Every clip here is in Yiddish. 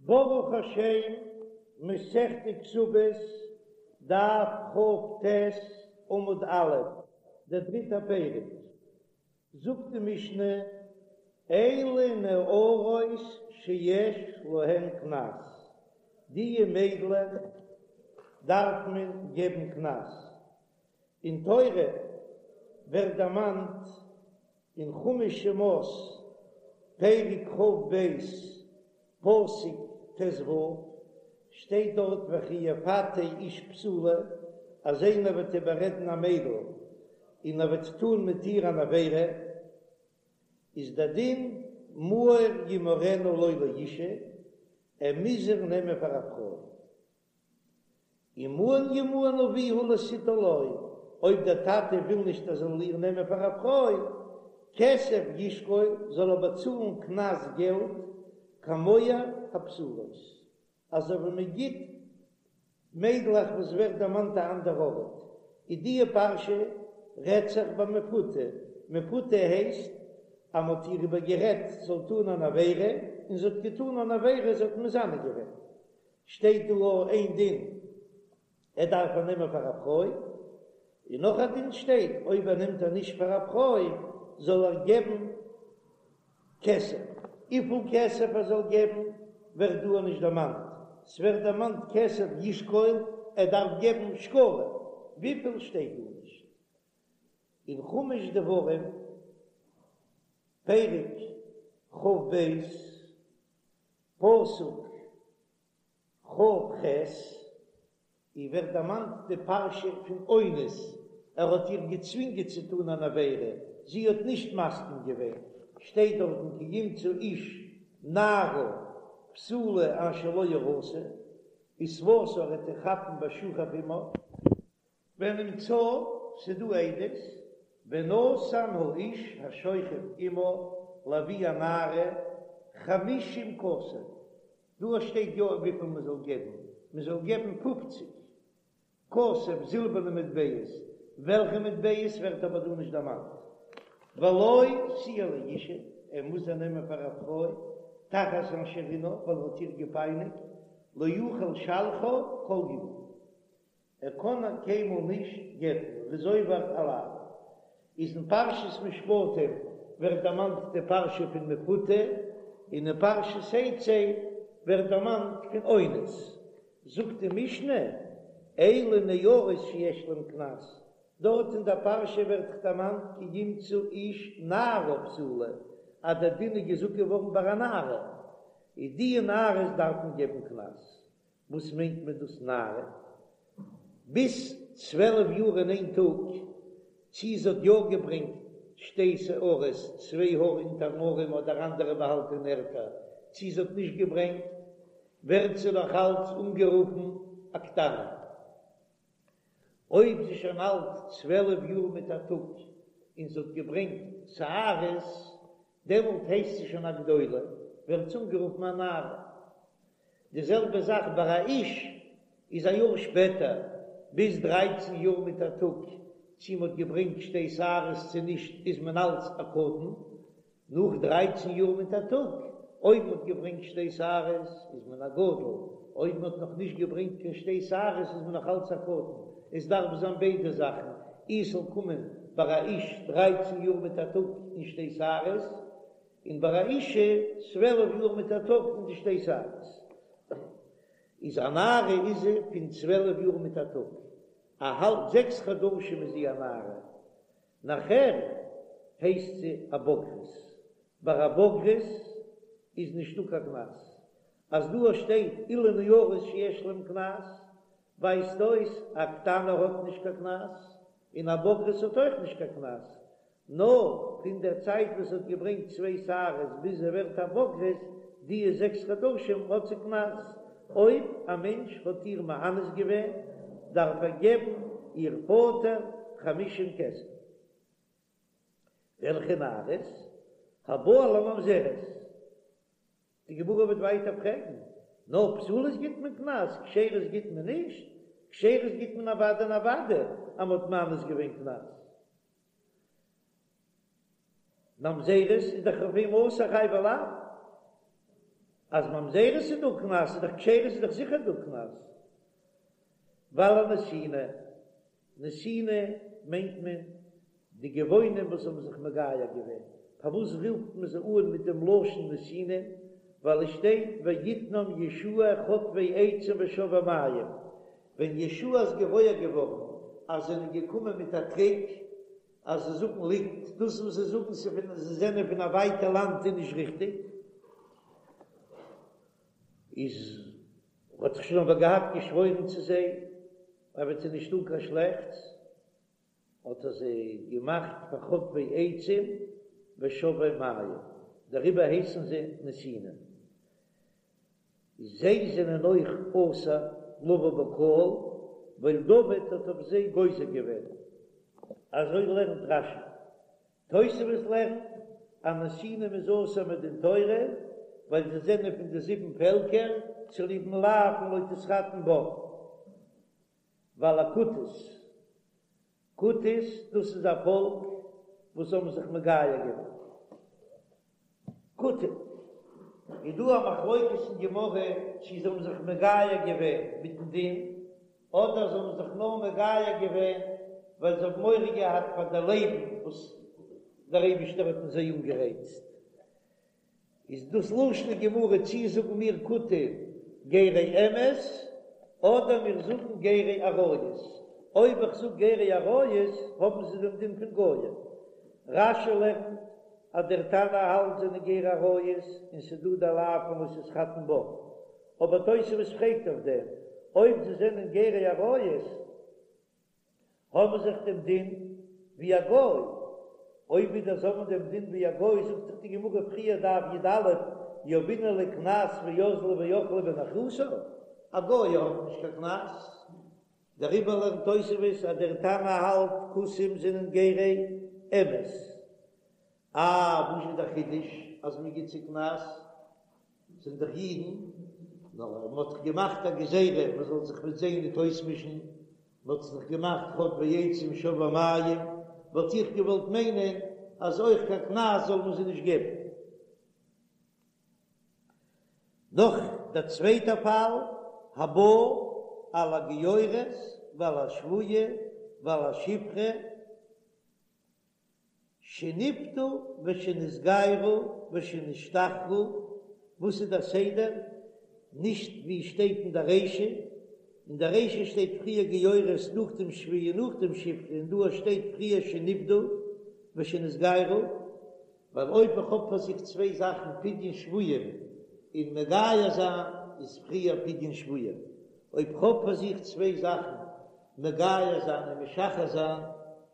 ברוך השם, מסכת כתובות, דף כ"ט, עמוד א', דער דריטער פרק, זאגט די משנה, אלו נערות שיש להן קנס, דיע מיידלעך דארף מען געבן קנס, אין תורה ווערט דערמאנט אין חומש שמות פרק כ"ב פסוק ט"ו שטייט דארט וכי יפתה איש בתולה אז איינער וועט איבעררעדן א מיידל און ער וועט טון מיט איר אן עבירה איז דער דין מהר ימהרנה לו לאשה ער מוז איר נעמען פאר א פרוי. ומאן ימאן אביה לתתה לו, אויב דער טאטע וויל נישט ער זאל איר נעמען פאר א פרוי, כסף ישקול, זאל ער באצאלן קנס געלט, כמוהר הבתולות, אזוי ווי מען גיט מיידלעך וואס ווערט דערמאנט א אנדער ארט, איז דיע פרשה רעדט זיך ביי מפותה, מפותה הייסט אז מען האט איר איבער גערעדט זאל טון אן עבירה, און זי האט געטון אן עבירה, זי האט מזנה געווען, שטייט דא אויך איין דין ער דארף איר נעמען פאר א פרוי, און נאך א דין שטייט אויב ער נעמט איר נישט פאר א פרוי זאל ער געבן כסף, וויפיל כסף ער זאל געבן ווערט דא נישט דערמאנט, ס'ווערט דערמאנט כסף ישקול ער דארף געבן שקלים, וויפיל שטייט דא נישט. אין חומש דברים פרק כ"ב פסוק כ"ח, אי ווערט דערמאנט די פרשה פון אונס, ער האט איר געצווינגען צו טון אן עבירה, זי האט נישט מסכים געווען, שטייט דארטן כי ימצא איש נערה בתולה אשר לא אורשה, ותפשה ער וועט איר כאפן ושכב עמה. ונמצאה, ס'דא עדות, ונתן האיש השוכב עמה לאבי הנערה חמישים כסף, דא שטייט יא וויפיל מען זאל געבן, מען זאל געבן פופציג כסף זילבערנע מטבעות, וועלכע מטבעות ווערט אבער דא נישט דערמאנט, ולו תהיה לאשה, ער מוז איר נעמען פאר א פרוי, תחת אשר ענה, ווייל ער האט איר געפייניגט, לא יוכל לשלחה כל ימיו. ער קען איר קיינמאל נישט גט'ן, ער איז עובר א לאו. איז אין פרשת משפטים ווערט דערמאנט די פרשה פון מפותה, און אין פרשת תצא ווערט דערמאנט פון אונס. זאגט די משנה, אלו נערות שיש להן קנס, דארט אין דער פרשה ווערט דערמאנט כי ימצא איש נערה בתולה, אז דער דין איז געזאגט געווארן ביי א נערה, איז די נערות דארף מען געבן קנס. וואס מיינט מען דאס נערה? ביז 12 יאר און איין טאג, צי זי האט יא געברענגט שתי שערות, צוויי האר אונטערן ארעם אדער אנדערע באהאלטענע ערטער, צי זי האט נישט געברענגט, ווערט זי נאך אלץ אנגערופן א קטנה. אויב זי איז שוין אלט 12 יאר מיט א טאג און זי האט געברענגט שערות, דעמאלט הייסט זי שוין א גדולה, ווערט זי אנגערופן א נערה. די זעלבע זאך ביי א איש איז א יאר שפעטער, ביז דרייצן יאר מיט א טאג, צי מ'האט געברענגט שתי שערות צו נישט איז מען אלץ א קטן, נאך דרייצן יאר מיט א טאג, אויב מ'האט געברענגט שתי שערות איז מען א גדול, אויב מ'האט נאך נישט געברענגט קיין שתי שערות איז מען נאך אלץ א קטן, עס דארף זיין ביידע זאכן, אי ס'זאל קומען ביי א איש דרייצן יאר מיט א טאג און שתי שערות, און ביי א אישה 12 יאר מיט א טאג און די שתי שערות. איז א נערה איז זי פון 12 יאר מיט א טאג, א האלב זעקס חדשים איז זי א נערה, נאכער הייסט זי א בוגרת, ביי א בוגרת איז נישטא קיין קנס, אז דא שטייט אלו נערות שיש להם קנס, ווייזט אויס א קטנה האט נישט קיין קנס, און א בוגרת האט אויך נישט קיין קנס, נאר פון דער צייט וואס האט געברענגט צוויי שערות ביז זי ווערט א בוגרת, די זעקס חדשים האט זי קנס, אויב א מענטש האט איר מאנס געווען דארף ער געבן איר פאטער חמישים כסף. וועלכע נערות? הבא על הממזרת. די גמרא וועט ווייטער פרעגן, נאר פסולות גיט מען קנס, כשרות גיט מען נישט? כשרות גיט מען אוודאי און אוודאי אז מען האט מאנס געווען קנס. ממזרת איז דאך אויף אים אסור חייבי לאוין. אז ממזרות איז דא קנס איז דאך כשרות איז דאך זיכער דא קנס. ועל הנתינים, נתינים מיינט מען די גבעונים וואס האבן זיך מגייר געווען, פארוואס רופט מען זיי אן מיט דעם לשון נתינים, ווייל עס שטייט ויתנם יהושע חוטבי עצים ושואבי מים, ווען יהושע איז געוואויר געווארן אז זיי זענען געקומען מיט א טריק אז זיי זאגן ליגנט, דאס וואס זיי זאגן זיי זענען פון א ווייטע לאנד איז נישט ריכטיג, איז האט זיך שוין אבער געהאט געשוואוירן צו זיי ער וועט זיי נישט טאן קיין שלעכטס, האט ער זיי געמאכט פאר חוטבי עצים ושואבי מים, דעריבער הייסן זיי נתינים. זיי זענען אויך אסור לבוא בקהל, ווייל דוד האט אויף זיי גוזר געווען. אזוי לערנט רש"י. תוספות לערנט אז נתינים איז אסור מדין תורה, ווייל זיי זענען פון די זיבן פעלקער, צוליבן לאו פון לא תתחתן בם. ועל הכותית, כותית דאס איז א פאלק וואס האבן זיך מגייר געווען. כותים, איז דא א מחלוקת אין גמרא צו זיי האבן זיך מגייר געווען מיטן דין, אדער זיי האבן זיך נאר מגייר געווען ווייל זיי האבן מורא געהאט פאר די לייבן וואס דער אייבישטער האט אין זיי אנגערייצט. איז דאס לשון הגמרא צי זאגן מיר כותים גרי אמת אדער מיר זאגן גרי אריות, אויב איך זאג גרי אריות האבן זיי דעם דין פון גוים. רש"י לערנט אז דער תנא האלט זענען גרי אריות און ס'דא דער לאו פון לא תתחתן בם, אבער תוספות פרעגט אויף דעם אויב זיי זענען גרי אריות האבן זיי דאך דעם דין ווי א גוי, אויב ווידער זיי האבן דעם דין ווי א גוי, זאגט דאך די גמרא פריער דף י"א, יהבינן להו קנס ואזלי ואכלי בנכרותא, א גוי האט נישט קיין קנס, דעריבער לערנט תוספות אז דער תנא האלט כותים זענען גרי אמת. אה, וואס איז דער חידוש אז מען גיט זיי קנס? זענען דאך אידן, נאר מען האט דאך געמאכט א גזירה מען זאל זיך מיט זיי ניט אויסמישן, מען האט זיך געמאכט חוטבי עצים שואבי מים, וואלט איך געוואלט מיינען אז אויך קיין קנס זאל מען זיי נישט געבן. נאך דער צווייטער פאל, הבא על הגיורת ועל השבויה ועל השפחה, שנפדו ושנתגיירו ושנשתחררו, וואס איז דער סדר? נישט ווי שטייט אין דער רישא, אין דער רישא שטייט פריער גיורת נאכדעם שבויה נאכדעם שפחה און דא שטייט פריער שנפדו ושנתגיירו, ווייל אויב איך האב פאר זיך צוויי זאכן פדיון שבויים און מגייר זיין איז פריער פדיון שבויים, אויב כ'האב פאר זיך צוויי זאכן מגייר זיין און משחרר זיין,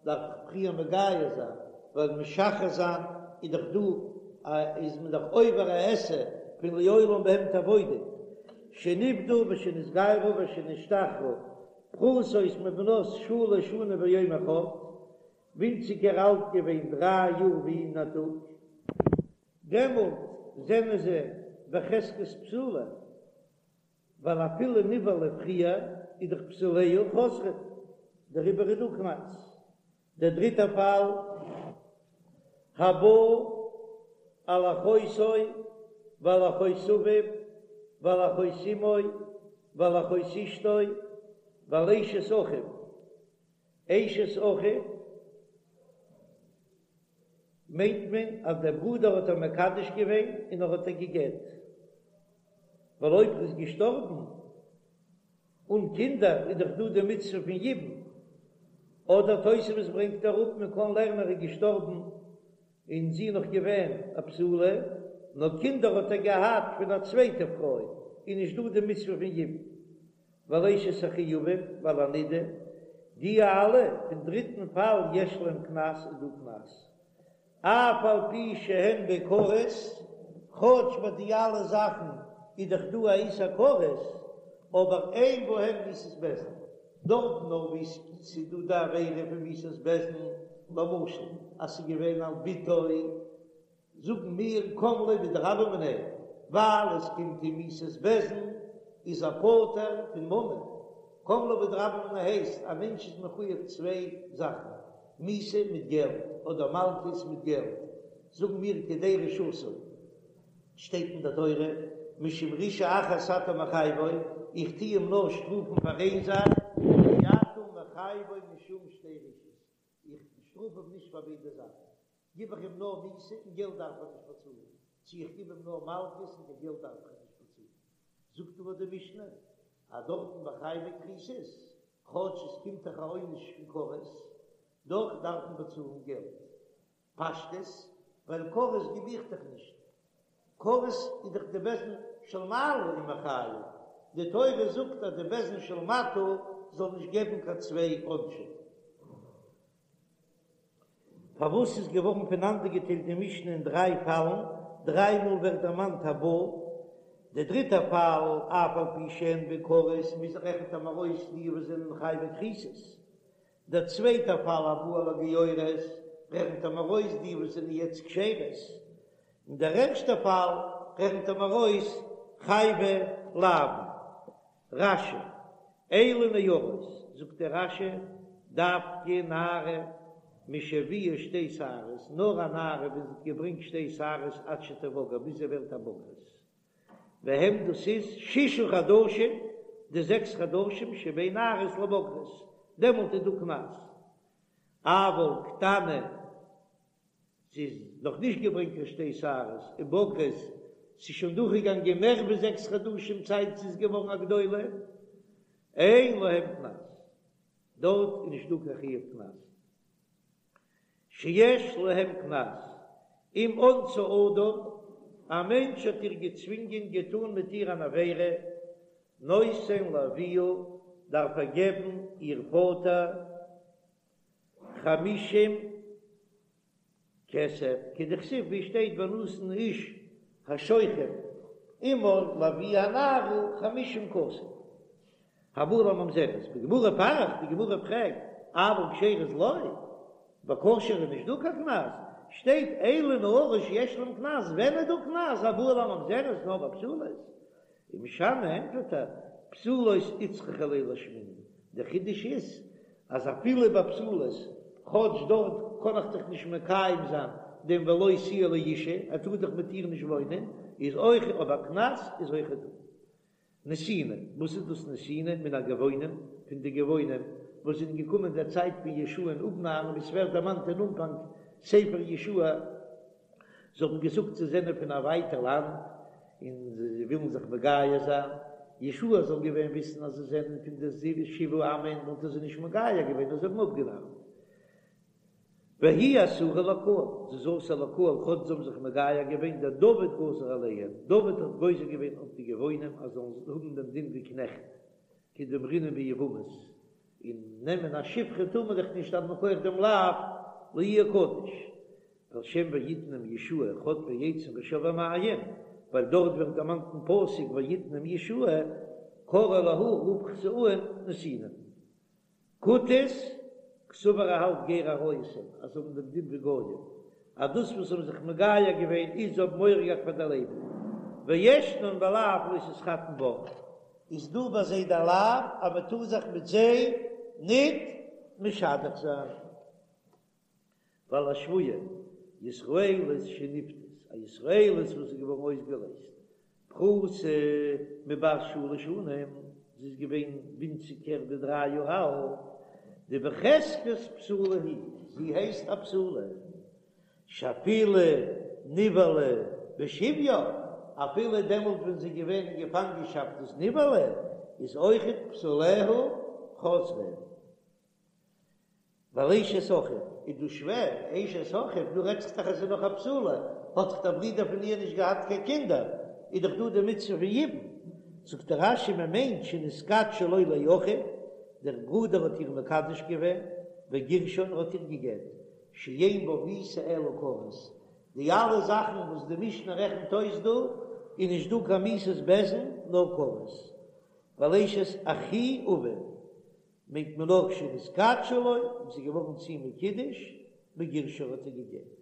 דארף איך פריער מגייר זיין, ווייל משחרר זיין איז דאך דא א איז מען דאך עובר א עשה פון לעולם בהם תעבודו, שנפדו ושנתגיירו ושנשתחררו, פחותות מבנות שלש שנים ויום אחד, ווינציגער אלט געווען דריי יאר ווי אין א טאג, דעמאלט זענען זיי בחזקת בתולה. ווייל אפילו נבעלה פריער איז דאך בתוליה חוזרין, דעריבער איז דא קנס. דער דריטער פאל, הבא על אחותו ועל אחות אביו ועל אחות אמו ועל אחות אשתו ועל אשת אחיו, אשת אחיו מיינט מען אז דער ברודער האט איר מקדש געווען און ער האט איר גע'גט, ווייל אויב ער איז געשטארבן אן קינדער איז דאך דא די מצוה פון יבום, אדער תוספות ברענגט אראפ מען קען לערנען ער איז געשטארבן און זי איז נאך געווען א בתולה, נאר קינדער האט ער געהאט פון א צווייטע פרוי, איז נישט דא די מצוה פון יבום. ועל אשת אחי אביו ועל הנידה, די אלע פון דריטן פאל יש להם קנס איז דא קנס, אף על פי שהן בכרת, כאטש ביי די אלע זאכן איז דאך דא א איסור כרת, אבער אין בהם מיתת בית דין, דארטן נאר וואו ס'איז דא די עבירה פון מיתת בית דין, למשל אז ס'איז געווען על בתו, זאגן מיר קם ליה בדרבה מיניה, ווייל עס קומט אים מיתת בית דין איז ער פטור פון ממון, קם ליה בדרבה מיניה הייסט א מענטש איז מחויב צוויי זאכן, מיתה מיט געלט אדער מלקות מיט געלט, זאגן מיר כדי רשעתו, שטייט אין די תורה. משום רשעה אחת אתה מחייבו, איך טו אים נאר שטראפן פאר איין זאך, ואי אתה מחייבו משום שתי רשעות, איך שטראף אים נישט פאר ביידע זאכן, גיב איך אים נאר מיתה און געלט דארף ער נישט באצאלן, צו איך גיב אים נאר מלקות און קיין געלט דארף ער נישט באצאלן. זאגט אבער די משנה אז דארטן ביי חייבי כריתות, כאטש עס קומט דאך א עונש פון כרת, דאך דארף מען באצאלן געלט. פשטות, ווייל כרת גיב איך דאך נישט. כרת איז דאך די בית דין של מעלה איז מחייב. די תורה זאגט אז די בית דין של מטה זאל נישט געבן קיין צוויי עונשים. פארוואס איז געווארן פונאנדערגעטיילט די משנה אין דריי פאלן, דריי מאל ווערט דערמאנט הבא, דער דריטער פאל, אף על פי שאין בו כרת, מוז רעכנט ער מיר אויס די וואס זענען חייבי כריתות, דער צווייטער פאל הבא על הגיורת, רעכנט ער מיר אויס די וואס זענען יעצט כשרות, און דער ערשטער פאל רעכנט ער מיר אויס חייבי לאוין. רש"י, אלו נערות, זאגט דער רש"י, דווקא נערה משהביאה שתי שערות, נאר א נערה ווען זי האט געברענגט שתי שערות עד שתבגר, ביז זי ווערט א בוגרת, והם דאס איז ששה חדשים, די זעקס חדשים שבין נערות לבוגרות, דעמאלט איז דא קנס, אבל קטנה זי איז נאך נישט געברענגט קיין שתי שערות ובוגרת, ס'איז שוין דורכגעגאנגען מער ווי זעקס חדשים צייט זי איז געווארן א גדולה, אין להם קנס, דארט איז נישט דא קיין חיוב קנס, שיש להם קנס, אם אנסה אדם, א מענטש האט איר געצווינגען געטאן מיט איר אן עבירה, נותן לאביה, דארף ער געבן איר פאטער חמישים כסף, כדכתיב ווי שטייט ונתן האיש השוכב עמה לאבי הנערה חמישים כסף. הבא על הממזרת, בגמרא פריך, די גמרא פרעגט, אבל כשרות לא, ביי כשר'ע איז נישט דא קיין קנס, שטייט אלו נערות שיש להם קנס, ווען איז דא קנס, הבא על הממזרת נאר ביי פסולות, ומשני ענטפערט ער, פסולות איצטריכא ליה לאשמועינן, דער חידוש איז אז אפילו ביי פסולות, כאטש דארט קען איך דאך נישט מקיים זיין דעם ולו תהיה לאשה, ער טאר דאך מיט איר נישט וואוינען, איז אויך אבער קנס איז אויך דא. נתינים, וואס איז דאס נתינים? מן הגבעונים, פון די גבעונים וואס זענען געקומען דער צייט פון יהושע'ן אפנארן, ווי ס'ווערט דערמאנט אין אנפאנג ספר יהושע, זיי האבן געזאגט זיי זענען פון א ווייטע לאנד און זיי ווילן זיך מגייר זיין, יהושע זאל געווען וויסן אז זיי זענען פון די שבעה עמים וואלט ער זיי נישט מגייר געווען נאר זיי האבן אפגענארט. והיא אסורה לקהל, זי איז אסור לקהל כאטש זיי האבן זיך מגייר געווען, דדוד גזר עליהם, דוד האט גוזר געווען אויף די גבעונים אז זיי זאלן האבן דעם דין ווי קנעכט, כדאמרינן ביבמות, און נעמען א שפחה טאר מען דאך נישט אז מכח דעם לאו לא יהיה קדוש. ועל שם ויתנם יהושע חוטבי עצים ושואבי מים, ווייל דארט ווערט דערמאנט אין פסוק ויתנם יהושע, קרי להו רב חסאן נתינים. כותית, קסבר ער האלט גרי אריות הן, אז זיי האבן דעם דין ווי גויים, אז דאס וואס זיי האבן זיך מגייר געווען איז זיי האבן מורא געהאט פאר די לעבן, וישנן בלאו לא תתחתן בם. איז דא ביי זיי דער לאו אז מען טאר זיך מיט זיי ניט משדך זיין. ועל השבויה, ישראלית שנפדית, א ישראלית וואס איז געווארן אויסגעלייזט, פחותה מבת שלש שנים, זי איז געווען ווינציגער ווי דריי יאר אלט, דבחזקת בתולה היא, זי הייסט א בתולה, שאפילו נבעלה בשביה, אפילו דעמאלט ווען זי איז געווען אין געפאנגענשאפט איז נבעלה, איז אויכעט בתוליה חוזרים. ועל אשת אחיו איז דא שווער, אשת אחיו, דא רעדט זיך דאך אז זי איז נאך א בתולה, האט דאך דער ברודער פון איר נישט געהאט קיין קינדער, איז דאך דא די מצוה פון יבום. זאגט דער רש"י מען מיינט שנתקדשה לו לאחיו, דער ברודער האט איר מקדש געווען, וגירשה און ער האט איר גע'גט, שאין בה מיתה אלא כרת, די אלע זאכן וואס די משנה רעכנט אויס דא, איז נישט דא קיין מיתת בית דין נאר כרת. ועל אשת אחי אביו, מיינט מען נאר כשנתקדשה לו, און ס'איז געווארן צו אים מקודש, וגירשה האט ער גע'גט.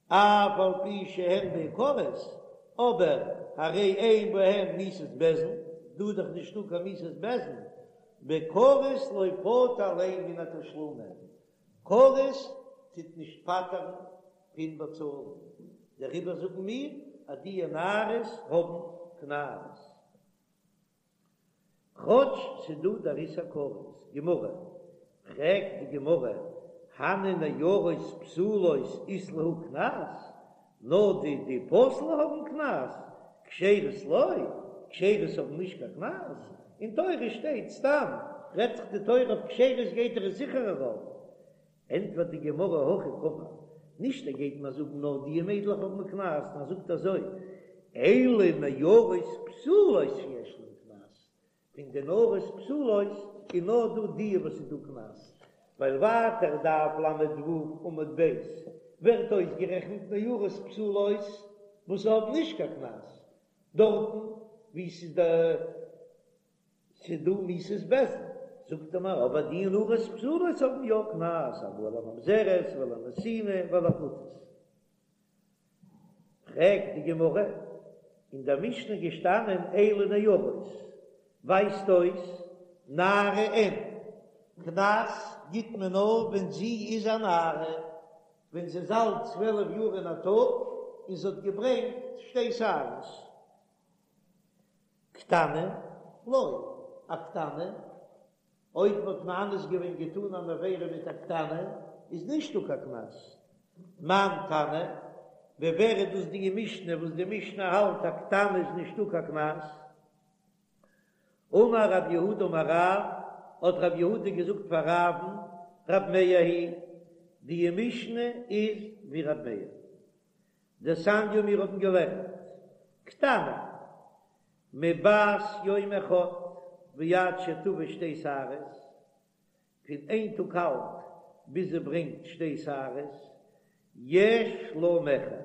אף על פי שהן מעיקרות, אבער הרי אין בהן מיתת בית דין, דא איז דאך נישטא קיין מיתת בית דין, בכרת לא פטר ליה מן התשלומין, כרת טוט נישט פטר'ן פון באצאלן, דעריבער זאגן מיר אז די נערות האבן קנס. קנס. כאטש ס'דא דער איסור כרת. גמרא, פרעגט די גמרא, הני נערות פסולות אית להו קנס, נאר די די פסול'ע האבן קנס, כשרות לא, כשרות האבן נישט קיין קנס, אין תורה שטייט סתם, רעדט זיך די תורה אויף כשרות גייט ער עס זיכער ארויף, ענטפערט די גמרא הכי קאמר, נישט ער גייט מיר זאגן נאר די מיידלעך האבן קנס, נאר ער זאגט אזוי, אלו נערות פסולות שיש להן קנס, פון די נערות פסולות איז נאר דא די וואס איז דא קנס, ווייל ווייטער דף ל"ו עמוד ב' ווערט אויסגערעכנט נערות פסולות וואס האבן נישט קיין קנס, דארטן וואו ס'איז די ס'איז דא מיתת בית דין, זאגט ער מיר אבער די נערות פסולות האבן יא קנס, הבא על הממזרת ועל הנתינה ועל הכותית. פרעגט די גמרא, אין דער משנה געשטאנען אלו נערות, ווייזט אויס נערה אין, קנס גיט מען נאר ווען זי איז א נערה, ווען זי איז אלט 12 יאר און א טאג און זי האט געברענגט שתי שערות. קטנה, לא, א קטנה, אויב מ'האט מאנס געווען געטאן אן עבירה מיט א קטנה, איז נישטא קיין קנס. מאן תנא, ווי ווער איז דאס די משנה וואס די משנה האלט א קטנה איז נישטא קיין קנס? אמר רב יהודה אמר רב, האט רב יהודה געזאגט פאר רב'ן, רב מאיר היא, די משנה איז ווי רב מאיר. דתניא מיר האבן געלערנט קטנה מבת יום אחד ועד שתביא שתי שערות, פון איין טאג אלט ביז זי ברענגט שתי שערות, יש לה מכר,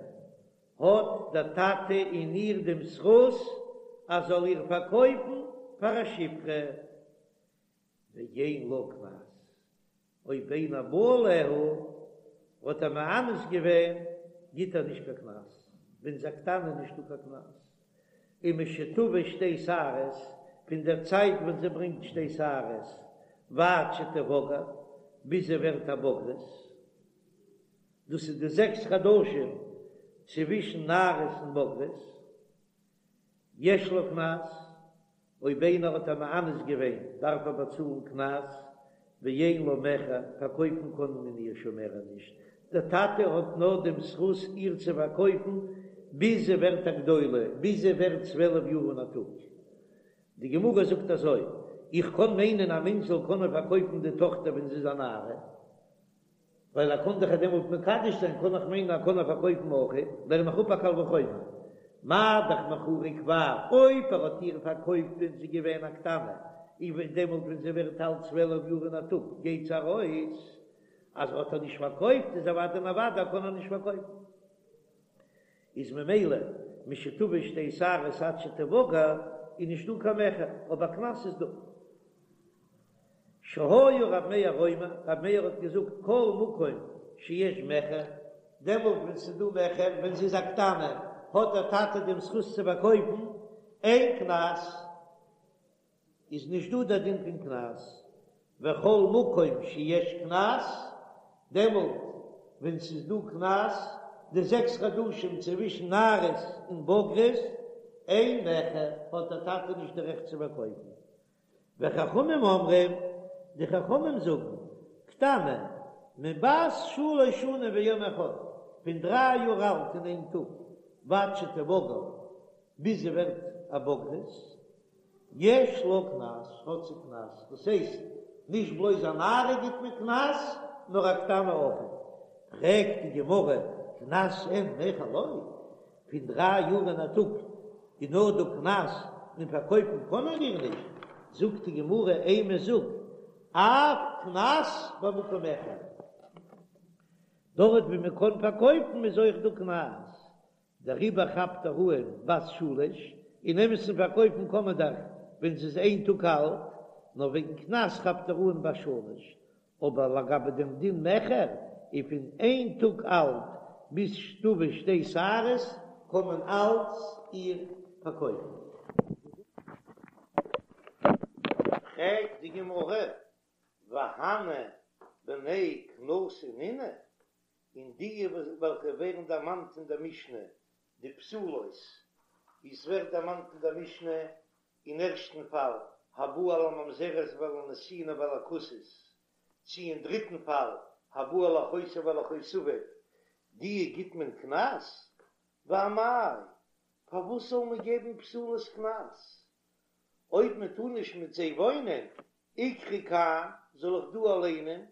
האט דער טאטע אין איר דעם זכות אז זאל איר פארקויפן פאר א שפחה, ואין לה קנס, אויב איינער בא עליה האט ער מאנס געווען גיט ער נישט קיין קנס, ווען זי איז א קטנה איז נישטא קיין קנס, ומשתביא שתי שערות, פון דער צייט ווען זי ברענגט שתי שערות ועד שתבגר, ביז זי ווערט א בוגרת, דאס איז די זעקס חדשים צווישן נערות און בוגרות, יש לה קנס, אויב איינער האט איר מאנס געווען דארף ער באצאלן קנס, ואין לה מכר, פארקויפן קען מען איר שוין מער נישט, דער טאטע האט נאר דעם זכות איר צו פארקויפן ביז זי ווערט א גדולה, ביז זי ווערט 12 יאר און א טאג. די גמרא זאגט אזוי, איך קען מיינען א מענטש זאל קענען פארקויפן די טאכטער ווען זי איז א נערה, ווייל ער קען דאך איר דעמאלט מקדש זיין, קען איך מיינען ער קען איר פארקויפן אויך, לערן איך אפ א קל וחומר, מה דאך מכורה כבר, אויב ער האט איר פארקויפט ווען זי איז געווען א קטנה, און דעמאלט ווען זי ווערט אלט 12 יאר און א טאג גייט זי ארויס, אז ער האט איר נישט פארקויפט איז אוודאי און אוודאי ער קען איר נישט פארקויפן, איז ממילא משתביא שתי שערות עד שתבגר איז נישט דא קיין מכר, אבער קנס איז דא. שהיה רב מאיר אומר, רב מאיר האט געזאגט כל מקום שיש מכר, דעמאלט ווען ס'איז דא מכר, ווען זי איז א קטנה, האט דער טאטע דעם זכות צו פארקויפן, אין קנס, איז נישט דא דער דין פון קנס, וכל מקום שיש קנס, דעמאלט ווען ס'איז דא קנס, די זעקס חדשים צווישן נערות און בוגרות, אין מכר, האט דער טאטע נישט די רעכט צו פארקויפן. וחכמים אומרים, די חכמים זאגן, קטנה, מבת שלש שנים ויום אחד, פון דריי יאר אלט און איין טאג, ועד שתבגר, ביז זי ווערט א בוגרת, יש לה קנס, האט זי קנס, דאס הייסט, נישט בלויז א נערה גיט מען קנס, נאר א קטנה אויך. פרעגט די גמרא, קנס אין מכר לא? פון דריי יאר און א טאג איז נאר דא קנס און פארקויפן קען מען איר נישט, זאגט די גמרא אימא זאג אף קנס במקום מכר, דארט ווי מען קען פארקויפן איז אויך דא קנס, דעריבער כאפט ער אן בת שלש, אין אמת'ן פארקויפן קען מען דאך ווען זי איז איין טאג אלט, נאר וועגן קנס כאפט ער אן בת שלש, אבער לגבי דעם דין מכר איז פון איין טאג אלט ביז שתביא שתי שערות קען מען אלץ איר פארקויפן. פרעגט די גמרא, והני בני קנסא נינהו, און די וועלכע ווערן דערמאנט אין דער משנה, די פסולות. ווי עס ווערט דערמאנט אין דער משנה אין ערשטן פאל, הבא על הממזרת ועל הנתינה ועל הכותית, צי אין דריטן פאל, הבא על אחותו ועל אחות אביו, די גיט מען קנס? ואמאי, פארוואס זאל מען געבן פסולות קנס? אויב מען טאר נישט מיט זיי וואוינען, איקרי כאן, זאל איך דא ליינען,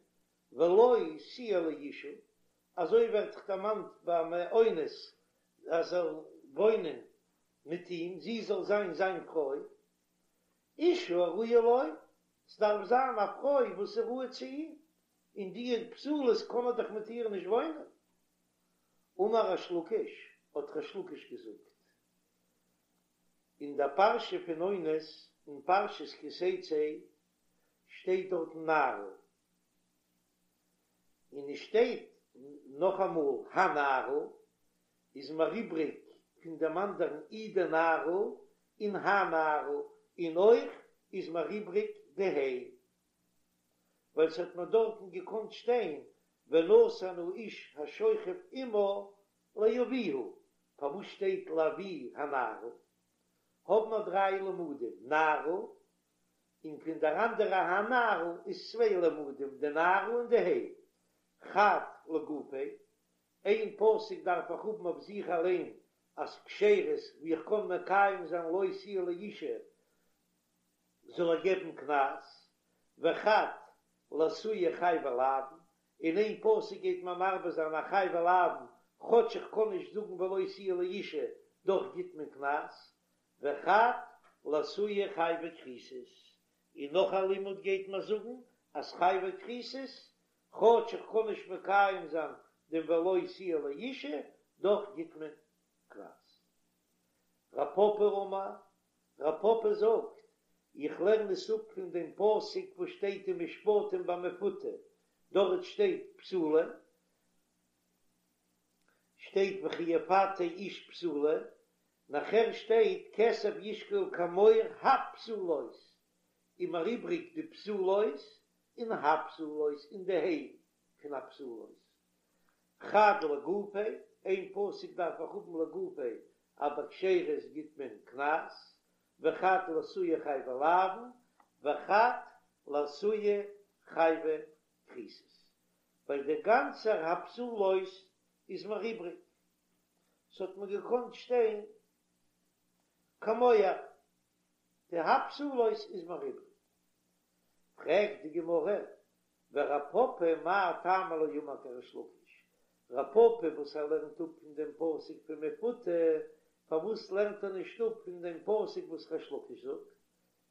ולו תהיה לאשה, אזוי ווערט דאך דערמאנט ביים אונס אז זאל וואוינען מיט אים, זי זאל זיין זיין פרוי, אשה הראויה לו, ס'דארף זיין א פרוי וואס איז ראוי צו אים, און די פסולות קען ער דאך מיט איר נישט וואוינען. אמר ריש לקיש, האט ריש לקיש געזאגט, אין דער פרשה פון אונס, אין פרשת כי תצא, שטייט דארטן נערה, און עס שטייט נאכאמאל הנערה, איז מיר איבריג פון דעם אנדערן אי די נערה און הנערה, און אויך איז מיר איבריג די ה', ווייל ס'האט מיר דארטן געקאנט שטיין ונתן האיש השוכב עמה לאביה, פארוואס שטייט לאבי הנערה? האבן מיר דריי למודים, נערה, און פון דער אנדערע הנערה איז צוויי למודים, די נערה און די ה'. חד לגופיה, איין פסוק דארף איך האבן אויף זיך אליין אז כשרות ווי איך קען מקיים זיין לו תהיה לאשה זאל ער געבן קנס, וחד לאתויי חייבי לאוין, און איין פסוק גייט מען מרבה זיין א חייבי לאוין כאטש איך קען נישט זאגן ולו תהיה לאשה דאך גיט מען קנס, וחד לאתויי חייבי כריתות, און נאך א לימוד גייט מען זאגן אז חייבי כריתות, כאטש איך קען נישט מקיים זיין דעם ולו תהיה לאשה, דאך גיט מען קנס. רב פפא אמר, רב פפא זאגט, איך לערן עס אפ פון דעם פסוק וואס שטייט אין משפטים ביי מפותה, דארט שטייט בתולה, שטייט וכי יפתה איש בתולה, נאכער שטייט כסף ישקול כמוהר הבתולות, איז מיר איבריג די בתולות און הבתולות און די ה' פון הבתולות. חד לגופיה, איין פסוק דארף איך האבן לגופיה אז ביי כשרות גיט מען קנס, וחד לאתויי חייבי לאוין, וחד לאתויי חייבי כריתות, ווייל דער גאנצער הבתולות איז מיר איבריג, ס'האט מיר געקאנט שטיין כמוהר, די הבתולות איז מיר איבריג. פרעגט די גמרא, ורב פפא מאי טעמא לא אמר כריש לקיש, רב פפא וואס ער לערנט אפ פון דעם פסוק פון מפותה, פארוואס לערנט ער נישט אפ פון דעם פסוק וואס ריש לקיש זאגט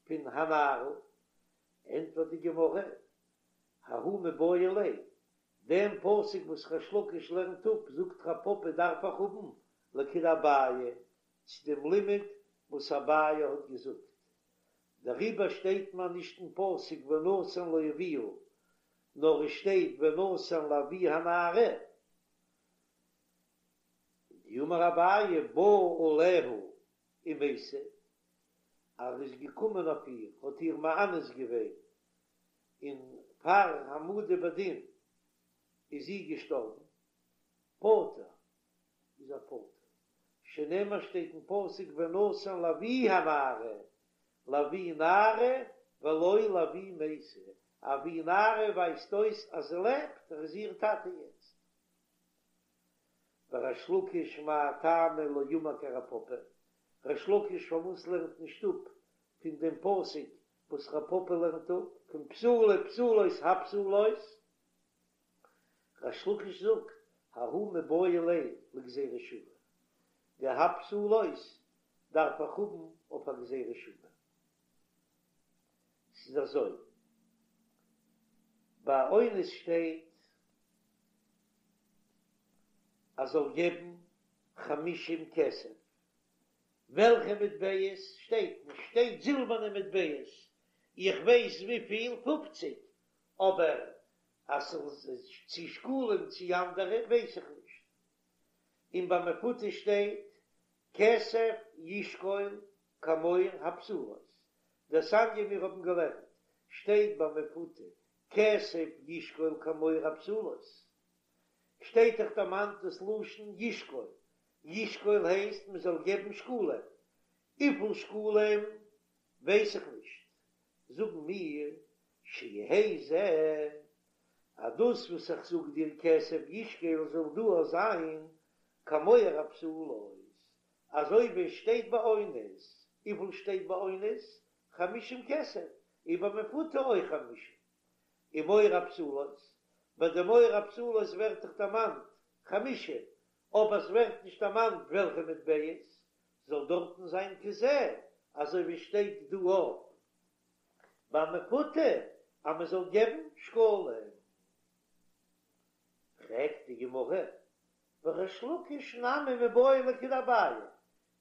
פון הנערה? ענטפערט די גמרא, ההוא מיבעי ליה, דעם פסוק וואס ריש לקיש לערנט אפ זאגט רב פפא דארף איך האבן לכדאביי, צו דעם לימוד וואס אביי האט געזאגט, דעריבער שטייט מיר נישט אין פסוק ונתן לאביה, נאר עס שטייט ונתן לאבי הנערה, דאמר אביי בא עליה ומתה, אז ער איז געקומען אויף איר, האט איר מאנס געווען, און פאר העמדה בדין איז זי געשטארבן, פטור איז ער פטור, שנאמר שטייט אין פסוק ונתן לאבי הנערה, לאבי נערה ולא לאבי מתה, אבי נערה ווייזט אויס אז זי לעבט, ער איז איר טאטע יעצט. וריש לקיש מאי טעמא לא אמר כרב פפא, ריש לקיש פארוואס לערנט נישט אפ פון דעם פסוק וואס רב פפא לערנט אפ פון בתולה בתולות הבתולות? ריש לקיש זאגט, ההוא מיבעי ליה לגזירה שוה, די הבתולות דארף איך האבן אויף א גזירה שוה. ס'איז אזוי, ביי אונס שטייט אז זאל געבן חמישים כסף, וועלכע מטבעות שטייט נישט, שטייט זילבערנע מטבעות, איך ווייס וויפיל, פופציג, אבער אז ס'איז צו שקלים צו אנדערע ווייס איך נישט. און ביי מפותה שטייט כסף ישקול כמוהר הבתולות, דתניא מיר האבן געלערנט שטייט ביי מפותה כסף ישקול כמוהר הבתולות, שטייט דאך דערמאנט דאס לשון ישקול, ישקול הייסט מען זאל געבן שקלים. וויפיל שקלים ווייס איך נישט, זאגן מיר שיהא זה, אז דאס וואס איך זאג דיר כסף ישקל זאל דא אויך זיין כמוהר הבתולות, אזוי ווי עס שטייט ביי אונס, וויפיל שטייט ביי אונס? חמישים כסף, און ביי מפותה אויך חמישים. און מוהר הבתולות, ביי די מוהר הבתולות ווערט דאך דערמאנט חמישים, אבער עס ווערט נישט דערמאנט וועלכע מטבעות, זאל דארטן זיין כזה, אזוי ווי שטייט דא אויך ביי מפותה אז מען זאל געבן שקלים. פרעגט די גמרא, וריש לקיש נמי מיבעי ליה לכדאביי,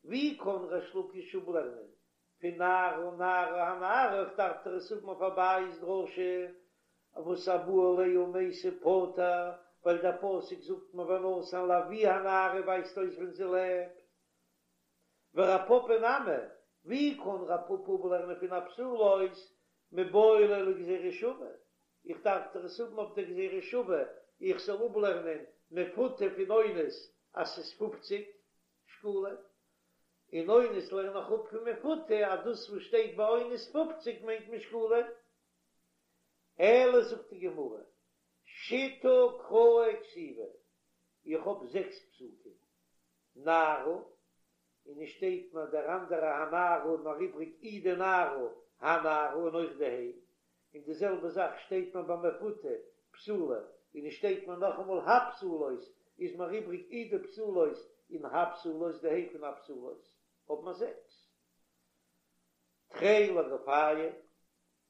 ווי קען ריש לקיש אפלערנען פון נערה נערה הנערה, איך דארף דאך עס האבן אויף אביי'ס דרשה וואס הבא עליה ומתה פטור, ווייל דער פסוק זאגט מיר ונתן לאבי הנערה ווייזט אויס ווען זי לעבט. ורב פפא נמי, ווי קען רב פפא אפלערנען פון הבתולות מיבעי ליה לגזירה שווה? איך דארף דאך עס האבן אויף דער גזירה שווה איך זאל אפלערנען מפותה פון אונס אז ס'איז פופציג שקלים, און אונס לערן איך אפ פון מפותה אז דאס וואס שטייט ביי אונס פופציג מיינט מען שקלים. אלא זאגט די גמרא, שיתא קראי כתיבי, איך האב זעקס פסוקים, נערה, און עס שטייט מיר דער אנדערע הנערה און נאר איבריג אי די נערה הנערה און אויך די ה', און די זעלבע זאך שטייט מיר ביי מפותה בתולה, און עס שטייט מיר נאכאמאל הבתולות, איז מיר איבריג אי די בתולות און הבתולות די ה' פון הבתולות, האב מיר זעקס. תרי לגופייהו,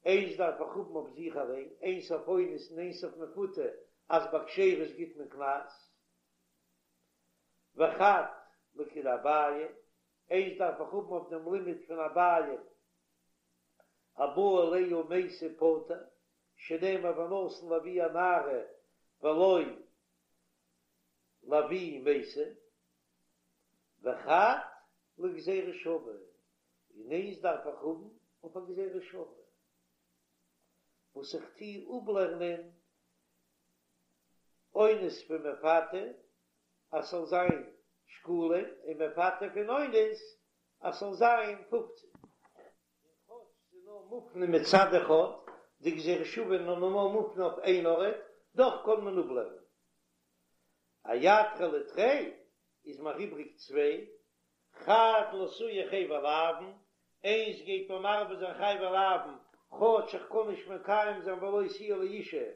איינס דארף איך האבן אויף זיך אליין, איינס אויף אונס און איינס אויף מפותה, אז ביי כשרות גיט מען קנס. וחד לכדאביי, איינס דארף איך האבן אויף דעם לימוד פון אביי, הבא עליה ומתה פטור, שנאמר ונתן לאבי הנערה ולא לאבי מתה, וחד לגזירה שווה, און איינס דארף איך האבן אויף א גזירה שווה, וואס איך טוה אפלערנען אונס פון מפתה אז ס'זאל זיין שקלים, און מפתה פון אונס אז ס'זאל זיין פופציג. און כאטש ס'איז נאר מופנה מצד אחד, די גזירה שווה איז נאר מופנה אויף איין ארט, דאך קען מען אפלערנען. אייתרו לי תרי איז מיר איבריג צוויי, חד לאתויי חייבי לאוין, איינס גייט מיר מרבה זיין חייבי לאוין, כאטש איך קען נישט מקיים זיין ולא תהיה לאשה,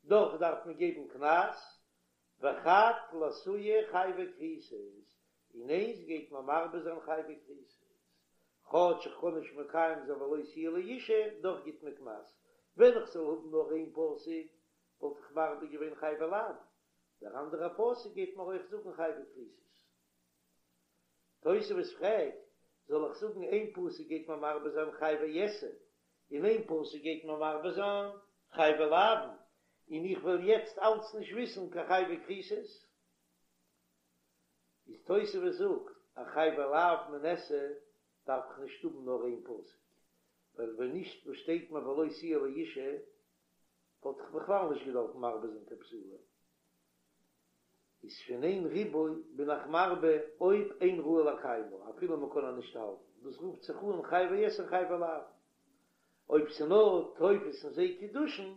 דאך דארף מען געבן קנס, וחד לאתויי חייבי כריתות, און איינס גייט מיר מרבה זיין חייבי כריתות, כאטש איך קען נישט מקיים זיין ולא תהיה לאשה, דאך גיט מען קנס, ווען איך זאל האבן נאר איין פסוק וואלט איך מרבה געווען חייבי לאוין, דער אנדערער פסוק גייט מיר אויך זאגן חייבי כריתות. תוספות פרעגט, זאל איך זאגן איין פסוק גייט מיר מרבה זיין חייבי עשה, און איין פסוק גייט מיר מרבה זיין חייבי לאוין, און איך וועל יעצט אלץ נישט וויסן קיין חייבי כריתות? איז תוספות זאגט אז חייבי לאוין מן עשה דארף איך נישט האבן נאר איין פסוק, ווייל ווען נישט וואס שטייט מיר ולא תהיה לאשה וואלט איך בכלל נישט געדארפט מרבה זיין קיין בתולה. איז פון איין ריבוי בין איך מרבה אויב אין ראוי לקיימה אפילו מען קען איר נישט האלטן, דאס רופט זיך אן חייבי עשה און חייבי לאוין. אויב ס'נאר תופס אין זיי קידושין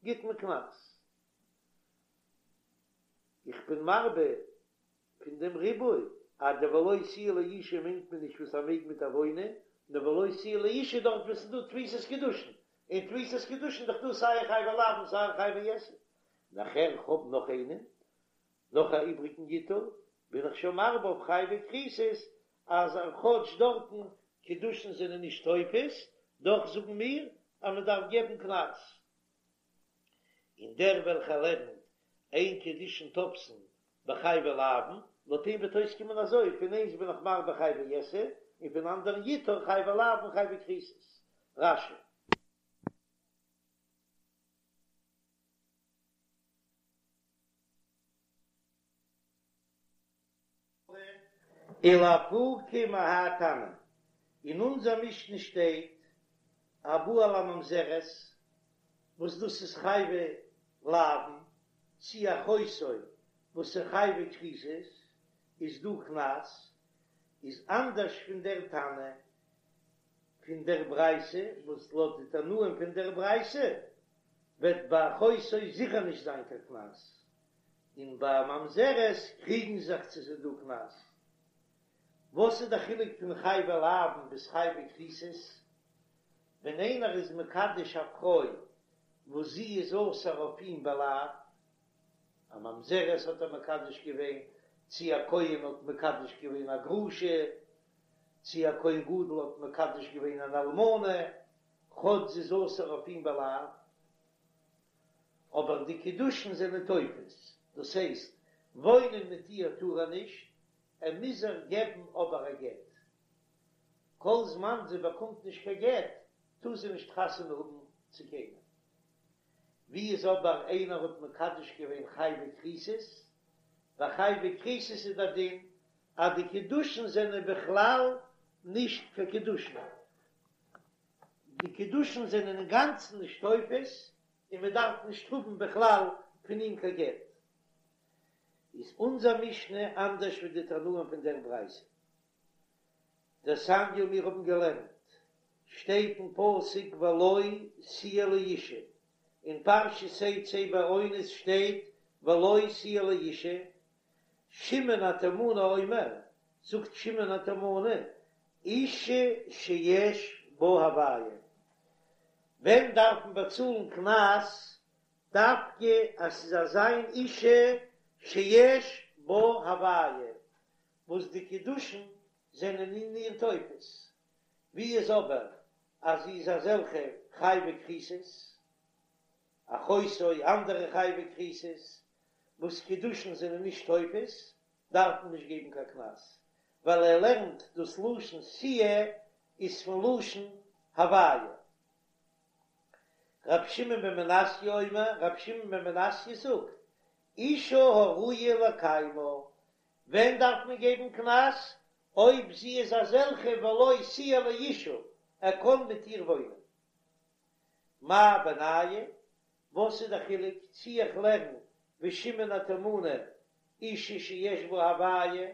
גיט מען קנס. איך בין מרבה פון דעם ריבוי אז די ולא תהיה לאשה מיינט מען נישט וואס ער מעג מיט איר וואוינען, נאר ולא תהיה לאשה דארט וואו ס'איז דא תפיסת קידושין, און תפיסת קידושין איז דאך דא סיי חייבי לאוין און סיי חייבי עשה. נאכער איך האב נאך איינעם, נאך א איבריגן יתור, בין איך שוין מרבה אויף חייבי כריתות, אז כאטש דארטן קידושין זענען נישט תופס, דאך זאגן מיר אז מען דארף געבן קנס. און דער וועלכער לערנט אין קידושין תופסין בחייבי לאוין, לויט אים וועט אויסקומען אזוי, פון איינס בין איך מרבה חייבי עשה, און פון אנדערן יתור חייבי לאוין חייבי כריתות. רש"י. ולאפוקי מהאי תנא, אין אונזער משנה שטייט הבא על הממזרת, וואס דאס איז חייבי לאוין, צי אחותו וואס איז חייבי כריתות, איז דא קנס,. איז אנדערש פון דער תנא פון דער ברייתא, וואס לויט די תנאים פון דער ברייתא וועט ביי אחותו זיכער נישט זיין קיין קנס, און ביי ממזרת קריגן זיך צו ס'איז דא קנס. וואס איז די חילוק פון חייבי לאוין ביז חייבי כריתות? ווען איינער איז מקדש א פרוי וואס זי איז אסור אויף אים בלאו, א ממזרת האט ער מקדש געווען, צי א כהן האט מקדש געווען א גרושה, צי א כהן גדול האט מקדש געווען אן אלמנה, כאטש זי איז אסור אויף אים בלאו, אבער די קידושין זענען תופס, דאס הייסט, וואוינען מיט איר טאר ער נישט, ער מוז איר געבן אבער א גט. כל זמן זי באקומט נישט קיין גט, טאר זי נישט חתונה האבן צו קיינעם. ווי איז אבער איינער האט מקדש געווען חייבי כריתות, ביי חייבי כריתות איז דער דין אז די קידושין זענען בכלל נישט קיין קידושין, די קידושין זענען אינגאנצן נישט תופס און מען דארף נישט האבן בכלל פון אים קיין גט. איז אונזער משנה אנדערש ווי די תנאים פון דער ברייתא? דתניא מיר האבן געלערנט שטייט אין פסוק ולו תהיה לאשה, אין פרשת תצא ביי אונס שטייט ולו תהיה לאשה, שמעון התימני אומר, זאגט שמעון התימני, אשה שיש בה הוויה, ווען דארף מען באצאלן קנס דווקא אז ס'איז אזא מין אשה שיש בה הוויה, וואס די קידושין זענען אין איר תופס, ווי איז אבער אז זי איז אזעלכע חייבי כריתות, אחותו אנדערע חייבי כריתות, וואס קידושין זענען נישט תופס, דארף מען נישט געבן קיין קנס, ווייל ער לערנט דאס לשון תהיה איז פון לשון הוויה. ר' שמעון בן מנסיא אומר, ר' שמעון בן מנסיא זאגט, אשה הראויה לקיימה, ווען דארף מען געבן קנס? אויב זי איז אזעלכע ולו תהיה לאשה, ער קען מיט איר וואוינען. מאי בינייהו? וואס איז די חילוק צי איך לערן ווי שמעון התימני אשה שיש בה הוויה,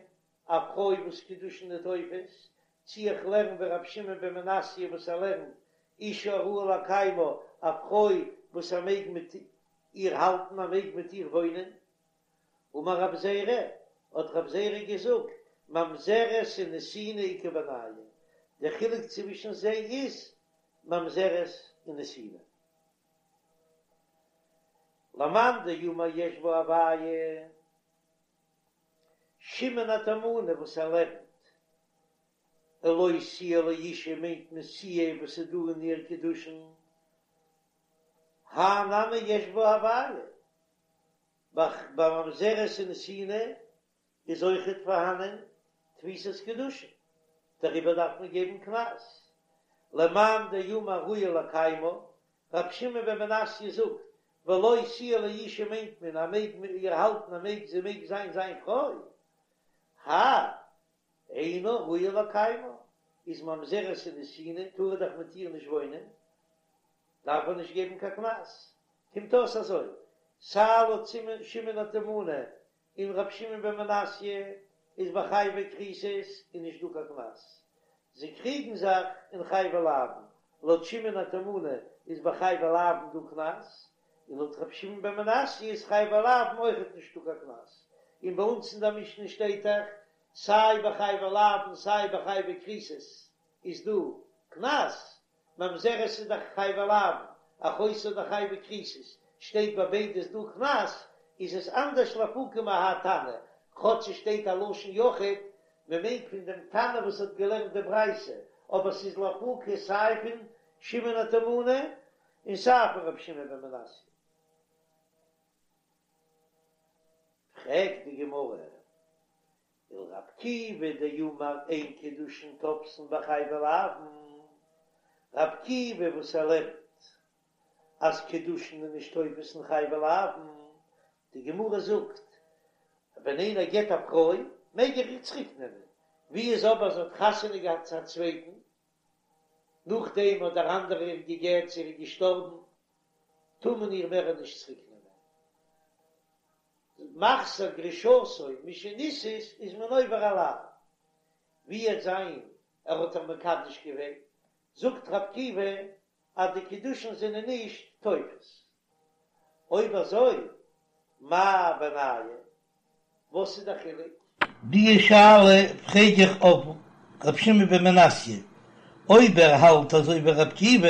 א פרוי וואס קידושין איז תופס, צי איך לערן ווי רבי שמעון בן מנסיא וואס ער לערנט אשה הראויה לקיימה, א פרוי וואס ער מעג מיט איר האלטן, ער מעג מיט איר וואוינען. אמר רב זירא, האט רב זירא געזאגט, ממזרת ונתינה איכא בינייהו, דער חילוק צווישן זיי איז ממזרת און נתינה. למאן דאמר יש בה הוויה, שמעון התימני וואס ער לערנט, ולו תהיה לאשה מיינט מען תהיה וואס איז דא אין איר קידושין, הא נמי יש בה הוויה, ביי ממזרת און נתינה איז אויכעט פארהאנען תפיסת קידושין, דעריבער דארף מען געבן קנס. למאן דאמר ראויה לקיימה, רבי שמעון בן מנסיא זאגט, ולו תהיה לאשה מיינט מען אז מעג מיט איר האלטן ער מעג זי מעג זיין זיין פרוי, האי אינה ראויה לקיימה, איז ממזרת און נתינה טאר ער דאך מיט איר נישט וואוינען, דארף ער נישט געבן קיין קנס. קומט אויס אזוי, סיי לויט שמעון התימני און ר' שמעון בן מנסיא איז ביי חייבי כריתות איז נישט דא קיין קנס. זיי קריגן זיך אין חייבי לאוין, לויט שמעון התימני איז ביי חייבי לאוין דא קנס, און לויט ר' שמעון בן מנסיא איז חייבי לאוין אויכעט נישטא קיין קנס. און ביי אונז אין דער משנה שטייט דאך סיי ביי חייבי לאוין סיי ביי חייבי כריתות איז דא קנס, ממזרת איז דאך חייבי לאוין, אחותו איז דאך חייבי כריתות, שטייט ביי ביידע איז דא קנס, איז עס אנדערש לאפוקי מהאי תנא, כאטש עס שטייט א לשון יחיד, מען מיינט פון דעם תנא וואס האט געלערנט די ברייתא, אבער ס'איז לאפוקי סיי פון שמעון התימני און סיי פון רבי שמעון בן מנסיא. פרעגט די גמרא, ולר' עקיבא דאמר אין קידושין תופסין בחייבי לאוין, ר' עקיבא וואס ער לערנט אז קידושין איז נישט תופס אין חייבי לאוין, די גמרא זאגט ווען איינער גט א פרוי מעג ער איר צוריק נעמען, ווי איז אבער זי האט חתונה געהאט צו א צווייטן, נאכדעם האט דער אנדערער איר געגט צו ער איז געשטארבן, טאר מען איר מער נישט צוריק נעמען. מחזיר גרושתו משנישאת איז מען עובר א לאו. ווי וועט זיין ער האט איר מקדש געווען, זאגט ר' עקיבא אז די קידושין זענען נישט תופס. אויב אזוי מאי בינייהו? וואס איז די חילוק? די שאלה פרעג איך אויף ר' שמעון בן מנסיא, אויב ער האלט אזוי ווי ר' עקיבא,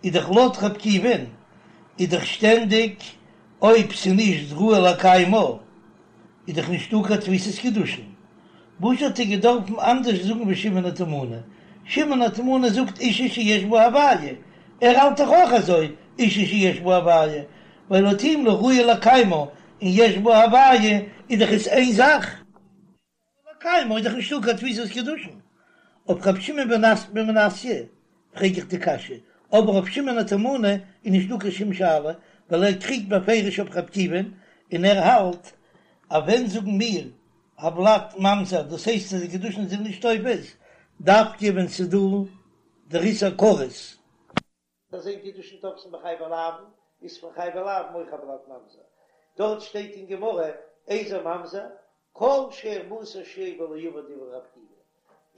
איז דאך לויט ר' עקיבא'ן איז דאך שטענדיג אויב ס'נישט ראוי לקיימה איז דאך נישטא קיין תפיסת קידושין, וואס האט ער געדארפן אנדערש זאגן ווי שמעון התימני? שמעון התימני זאגט אישה שיש בה הוויה, ער האלט דאך אויך אזוי אישה שיש בה הוויה, ווייל לויט אים לא ראוי לקיימה און יש בה הוויה איז דאך עס איין זאך. לקיימה איז דאך נישטא קיין תפיסת קידושין. אויף ר' שמעון בן מנסיא פרעג איך די קשיא, אבער אויף שמעון התימני איז נישטא קיין שום שאלה, ווייל ער קריגט בפירוש אויף ר' עקיבא'ן און ער האלט אז ווען זאגן מיר הולד ממזר דאס הייסט אז די קידושין זענען נישט תופס דווקא ווען ס'איז דא דער איסור כרת. אז אין קידושין תופסין בחייבי לאוין איז פון חייבי לאוין אויך הולד ממזר, דארט שטייט אין גמרא איזהו ממזר כל שהורמתה שואבה לא עבר דברי ר' עקיבא,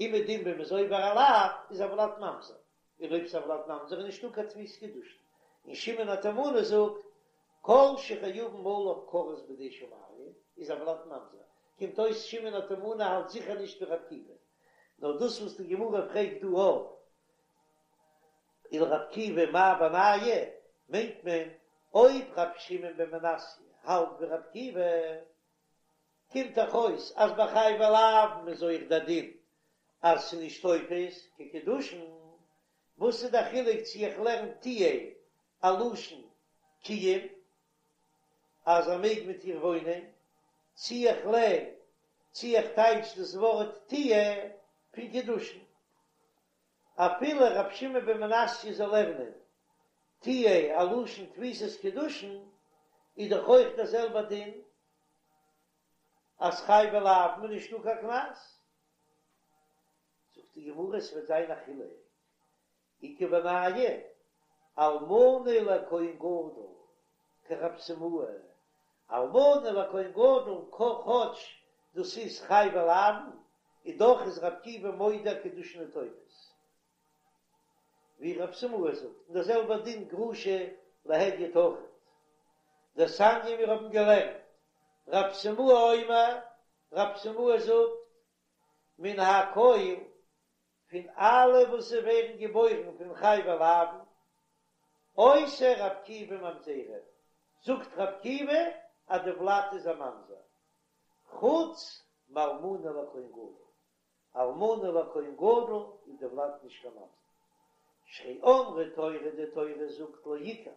אומעדום ווען מ'איז עובר א לאו איז הולד ממזר, און אויב ס'איז הולד ממזר איז נישטא קיין תפיסת קידושין, און שמעון התימני זאגט כל שחייבין עליו כרת בידי שמים איז הולד ממזר, קומט אויס שמעון התימני האלט זיכער נישט ווי ר' עקיבא, נאר דאס וואס די גמרא פרעגט דא אויף ולר' עקיבא מאי בינייהו, מיינט מען אויב ר' שמעון בן מנסיא האלט ווי ר' עקיבא, קומט דאך אויס אז ביי חייבי לאוין איז אויך דער דין אז ס'איז נישט תופס קיין קידושין, וואס איז דער חילוק צו איך לערן תהיה א לשון קיום אז ער מעג מיט איר וואוינען, צו איך לערן צו איך טייטש דאס ווארט תהיה פון קידושין. אפילו ר' שמעון בן מנסיא זאל לערנען תהיה א לשון תפיסת קידושין, איז דאך אויך דער זעלבער דין אז חייבי לאוין איז נישטא קיין קנס. זאגט די גמרא עס וועט זיין א חילוק, איכא בינייהו אלמנה לכהן גדול כרב סימאי, אלמנה לכהן גדול כאטש דאס איז חייבי לאוין, און דאך איז ר' עקיבא מודה קידושין תופס, ווי רב סימאי זאגט, און דער זעלבער דין גרושה להדיוט אויכעט. דתניא מיר האבן געלערנט, רב סימאי אומר, רב סימאי זאגט, מן הכל פון אלע וואס ס'ווערן געבוירן פון חייבי לאוין, עושה ר' עקיבא ממזרים, זאגט ר' עקיבא אז די ולד איז א ממזר, חוץ מאלמנה לכהן גדול, אלמנה לכהן גדול איז די ולד נישט קיין ממזר, שהרי אמרה תורה די תורה זאגט לא יקח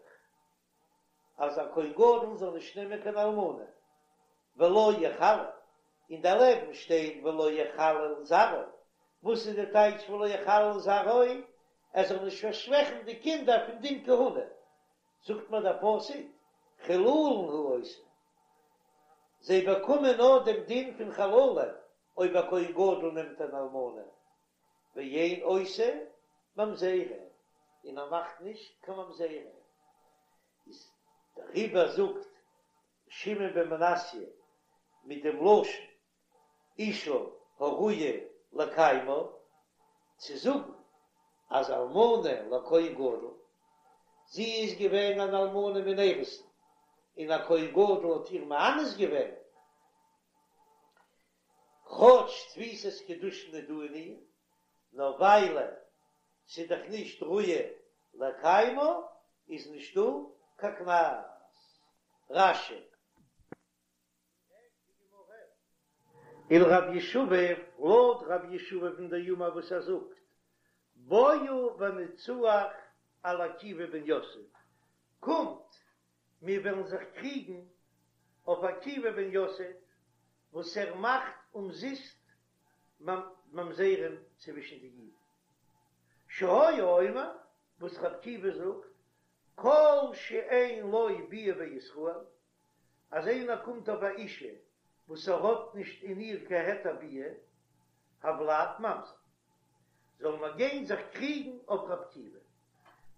אז א כהן גדול זאל נישט נעמען קיין אלמנה, ולא יחלל, און דערלעבן שטייט ולא יחלל זרעו, וואס איז די טייטש ולא יחלל זרעו? ער זאל נישט פארשוועכן די קינדער פון דין כהונה, זאגט מיר דער פסוק חילולין הוא עושה, זיי באקומען נאר דעם דין פון חללים אויב א כהן גדול נעמט אן אלמנה, ואין עושה ממזרים, און ער מאכט נישט קיין ממזרים, איז דעריבער זאגט שמעון בן מנסיא מיט דעם לשון אישה הראויה לקיימה, צו זאגן אז אלמנה לכהן גדול, זי איז געווען אן אלמנה מן אירוסין, און א כהן גדול האט איר מאנס געווען, כאטש תפיסת קידושין איז דא אין איר, נאר וויילע ס'איז דאך נישט ראויה לקיימה איז נישטא קיין קנס. רש"י. ולרב ישבב, לויט רב ישבב'ן דאמר וואס ער זאגט, בואו ונצוח על עקיבא בן יוסף, קומט מיר וועלן זיך קריגן אויף עקיבא בן יוסף וואס ער מאכט אומזיסט ממזרים צווישן די אידן. שהיה אומר, וואס ר' עקיבא זאגט, כל שאין לו ביאה בישראל, אז איינער קומט אויף א אישה וואס ער האט נישט אין איר קיין היתר ביאה, הולד ממזר. זאל מען גיין זיך קריגן אויף ר' עקיבא.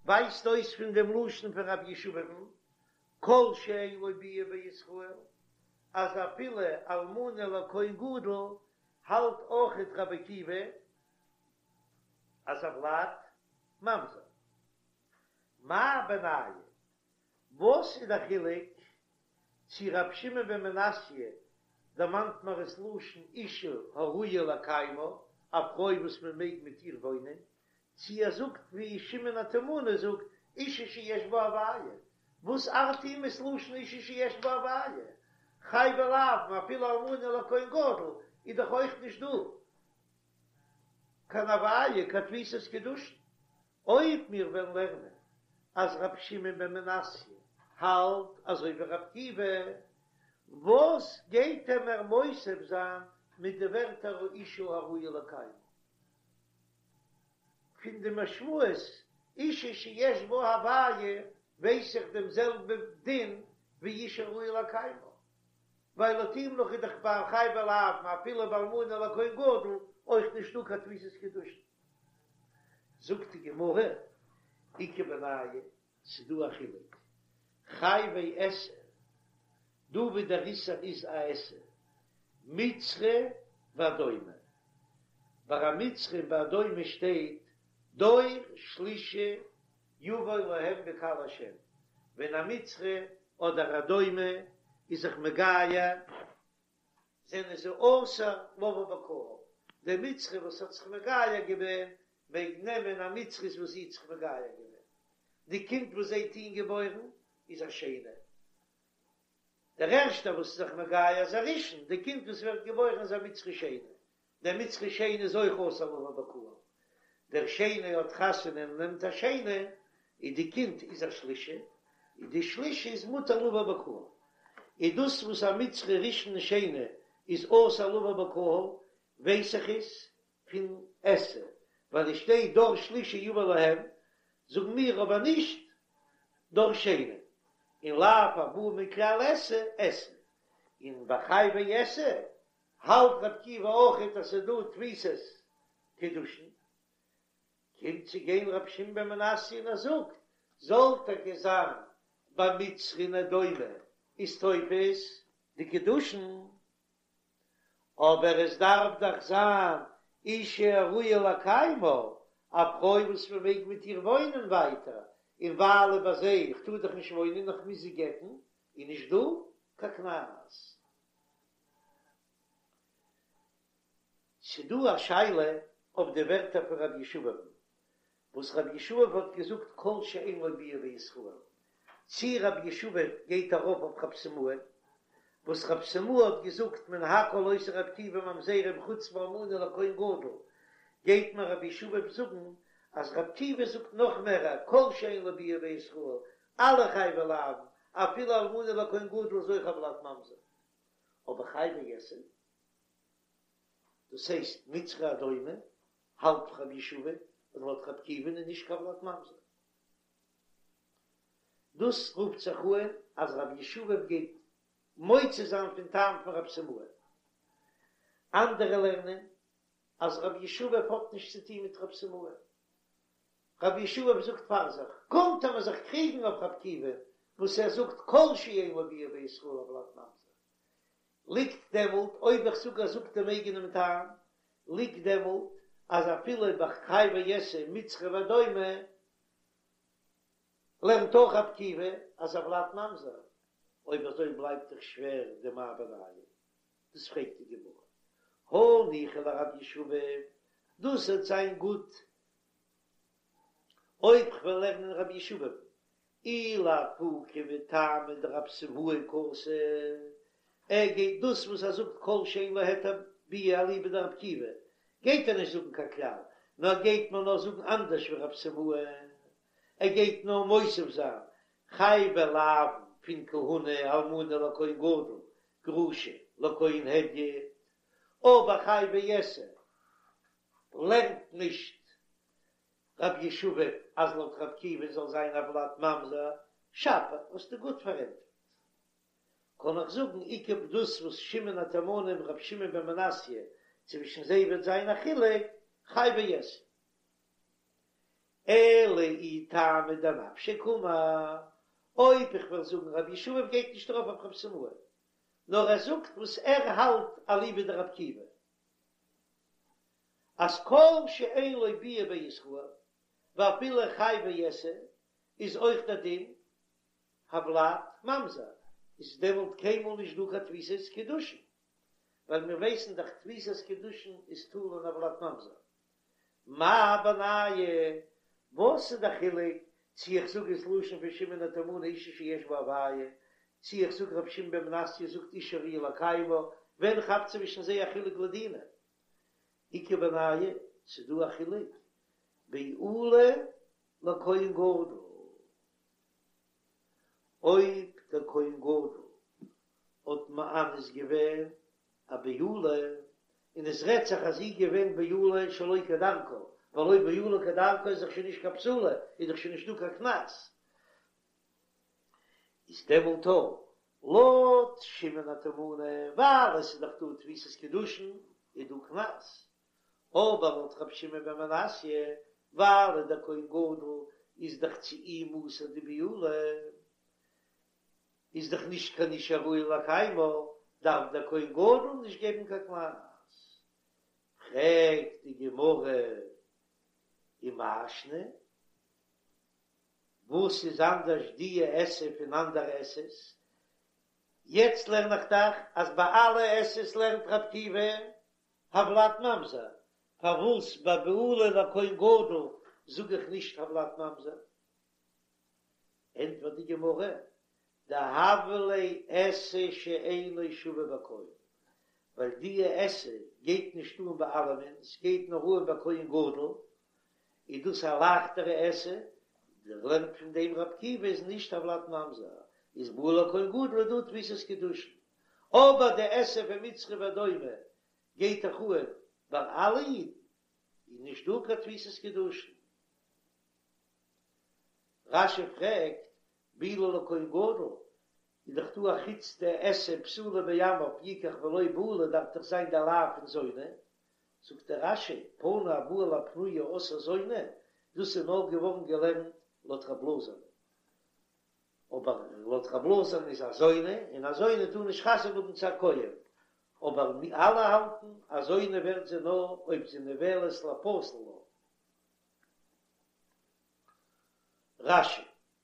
ווייזט אויס פון דעם לשון פון רב ישבב'ן, כל שאין לו ביאה בישראל, אז אפילו אלמנה לכהן גדול. האלט אויכעט רבי עקיבא אז הולד ממזר. מאי בינייהו? וואס איז די חילוק צו רבי שמעון בן מנסיא דערמאנט מיר עס לשון אישה הראויה לקיימה, א פרוי וואס מען מעג מיט איר וואוינען, צו ער זאגט ווי שמעון התימני זאגט אישה שיש בה הוויה, וואס ארט אים עס לשון אישה שיש בה הוויה? חייבי לאוין אפילו אלמנה לכהן גדול איז דאך אויך נישט דא קיין הוויה קיין תפיסת קידושין. אויב מיר וועלן לערנען אז רבי שמעון בן מנסיא האלט אזוי ווי רבי עקיבא, וואס גייט ער מער מוסיף זיין מיט די ווערטער האישה הראויה לקיימה? פון די משמעות אישה שיש בה הוויה ווייס איך דעם זעלבע דין ווי אישה הראויה לקיימה, ווייל לויט אים נאך איז דאך ביי חייבי לאוין אפילו ביי אלמנה לכהן גדול אויך נישטא קיין תפיסת קידושין. זאגט די גמרא, איכא בינייהו, ס'דא א חילוק, חייבי עשה, דא ווי דער איסור איז א עשה, מצרי ואדומי, ביי א מצרי און ביי אדומי שטייט דור שלישי יבוא להם בקהל השם, ווען א מצרי אדער אדומי איז זיך מגייר, זענען זיי אסור לבוא בקהל, דער מצרי וואס האט זיך מגייר געווען מעג נעמען א מצרית וואס זי האט זיך מגייר געווען, די קינד וואס זיי טוהן געבוירן איז א שני, דער ערשטער וואס איז זיך מגייר איז א ראשון, די קינד וואס ווערט געבוירן איז א מצרי שני, דער מצרי שני איז אויך אסור לבוא בקהל, דער שני האט חתונה און נעמט א שני, און די קינד איז א שלישי, און די שלישי איז מותר לבוא בקהל, איז דאס וואס א מצרי ראשון און שני איז אסור לבוא בקהל, ווייס איך עס פון עשה, ווייל עס שטייט דור שלישי יבא להם, זאגן מיר אבער נישט דור שני, און לאו הבא מכלל עשה עשה, און ביי חייבי עשה האלט רבי עקיבא אויכעט אז ס'איז דא תפיסת קידושין, קומט צו גיין רבי שמעון בן מנסיא און ער זאגט, זאל טאקע זיין ביי מצרי און אדומי איז תופס די קידושין, אבער עס דארף דאך זיין אישה הראויה לקיימה, א פרוי וואס מען מעג מיט איר וואוינען ווייטער, און ווייל ביי זיי איך טאר דאך נישט וואוינען איך מוז זי גט'ן, איז נישט דא קיין קנס. ס'דא א שאלה אויף די ווערטער פון רבי ישבב, וואס רבי ישבב האט געזאגט כל שאין לו ביאה בישראל, צי רבי ישבב גייט ארויף אויף רב סימאי, וואס רב סימאי האט געזאגט מן הכל עושה רבי עקיבא ממזרים חוץ מאלמנה לכהן גדול, גייט מיר רבי ישבב זאגן אז רבי עקיבא זאגט נאך מער כל שאין לו ביאה בישראל, אלע חייבי לאוין, אפילו אלמנה לכהן גדול איז אויך הולד ממזר. אבער חייבי עשה, דאס הייסט מצרי אדומי, האלט רבי ישבב אז לויט רבי עקיבא'ן איז נישט קיין ולד ממזר. דאס רופט זיך אן אז רבי ישבב גייט מוציא זיין פון טעם פון רב סימאי. אנדערע לערנען אז רבי ישבב האט נישט צו טון מיט רב סימאי. רבי ישבב זאגט פאר זיך, קומט ער מיר זיך קריגן אויף רבי עקיבא וואס ער זאגט כל שאין לו ביאה בישראל הולד ממזר, ליגט דעמאלט אויב איך זאג ער זאגט דעם אייגענעם טעם, ליגט דעמאלט אז אפילו ביי חייבי עשה מצרי ואדומי לערנט אויך רבי עקיבא אז הולד ממזר, אויב אזוי בלייבט דאך שווער די מאי בינייהו, דאס פרעגט די גמרא, הניחא לרבי ישבב, דאס וועט זיין גוט אויב כ'וועל לערנען רבי ישבב, אי לאפוקי מטעמא דרב סימאי קאתי, ער גייט דאס וואס ער זאגט כל שאין לו היתר ביאה אליבא דרבי עקיבא, גייט ער נישט זאגן קיין כלל, נאר גייט מען נאר זאגן אנדערש ווי רב סימאי, ער גייט נאר מוסיף זיין חייבי לאוין פון כהונה אלמנה לכהן גדול גרושה לכהן הדיוט, אבער חייבי עשה לערנט נישט רבי ישבב אז לויט רבי עקיבא זאל זיין הולד ממזר, שפיר האסטו גוט פארענטפערט. קען איך זאגן איכא דאס וואס שמעון התימני און רבי שמעון בן מנסיא צווישן זיי וועט זיין א חילוק, חייבי עשה. אלא אי טעמא דנפשיה קאמר, אויב איך וועל זאגן רבי ישבב גייט נישט ארויף אויף רב סימאי, נאר ער זאגט וואס ער האלט אליבא דרבי עקיבא. אז כל שאין לו ביאה בישראל ואפילו חייבי עשה איז אויך דער דין הולד ממזר, איז דעמאלט קיינמאל נישט דא קיין תפיסת קידושין, ווייל מיר ווייסן דאך תפיסת קידושין איז תלוי אין הולד ממזר. מאי בינייהו? וואס איז די חילוק צו איך זאג עס לשון פון שמעון התימני אישה שיש בה הוויה, צו איך זאג רבי שמעון בן מנסיא זאגט אישה הראויה לקיימה, ווען כאפט צווישן זיי א חילוק לדינא? איכא בינייהו, ס'דא א חילוק בעולה לכהן גדול, אויב דער כהן גדול האט מאנס געווען א בעולה, און עס רעדט זיך אז זי איז געווען בעולה שלא כדרכה, ווייל אויב בעולה כדרכה איז דאך שוין נישט קיין בתולה, איז דאך שוין נישטא קיין קנס, איז דעמאלט לויט שמעון התימני, ווייל עס איז דאך דא תפיסת קידושין, איז דא קנס, אבער לויט רבי שמעון בן מנסיא, ווייל דער כהן גדול איז דאך צו אים אסור די בעולה, איז דאך נישט קיין אישה הראויה לקיימה, דארף דער כהן גדול נישט געבן קיין קנס. פרעגט די גמרא ומאי שנא, וואס איז אנדערש דיע עשה פון אנדערע עשה'ס? יעצט לערן איך דאך אז ביי אלע עשה'ס לערנט רבי עקיבא הולד ממזר, פארוואס ביי בעולה לכהן גדול זאג איך נישט הולד ממזר? ענטפערט די גמרא, דהוה ליה עשה שאינו שווה בכל, ווייל דיע עשה גייט נישט אן ביי אלעמען, ס'גייט נאר אן ביי כהן גדול, איז דאס א לייכטערע עשה, דער לערנט פון דעם רבי עקיבא איז נישט הולד ממזר, איז בעולה לכהן גדול איז דא תפיסת קידושין, אבער די עשה פון מצרי ואדומי גייט דאך אן ביי אלע אידן, איז נישט דא קיין תפיסת קידושין. רש"י פרעגט, בעולה לכהן גדול, איז דאך דא א חוץ די עשה בתולה בעמיו יקח ולא בעולה דארף דאך זיין די לאו פון זונה, זאגט דער רש"י, פנוי הבא על הפנויה עשאה זונה, דאס איז נאר געווארן געלערנט לויט רב אלעזר'ן, אבער לויט רב אלעזר'ן איז א זונה, און א זונה טאר נישט חתונה האבן צו א כהן, אבער אלע האלטן אז זונה ווערט זי נאר אויב זי נבעלת לפסול לה. רש"י.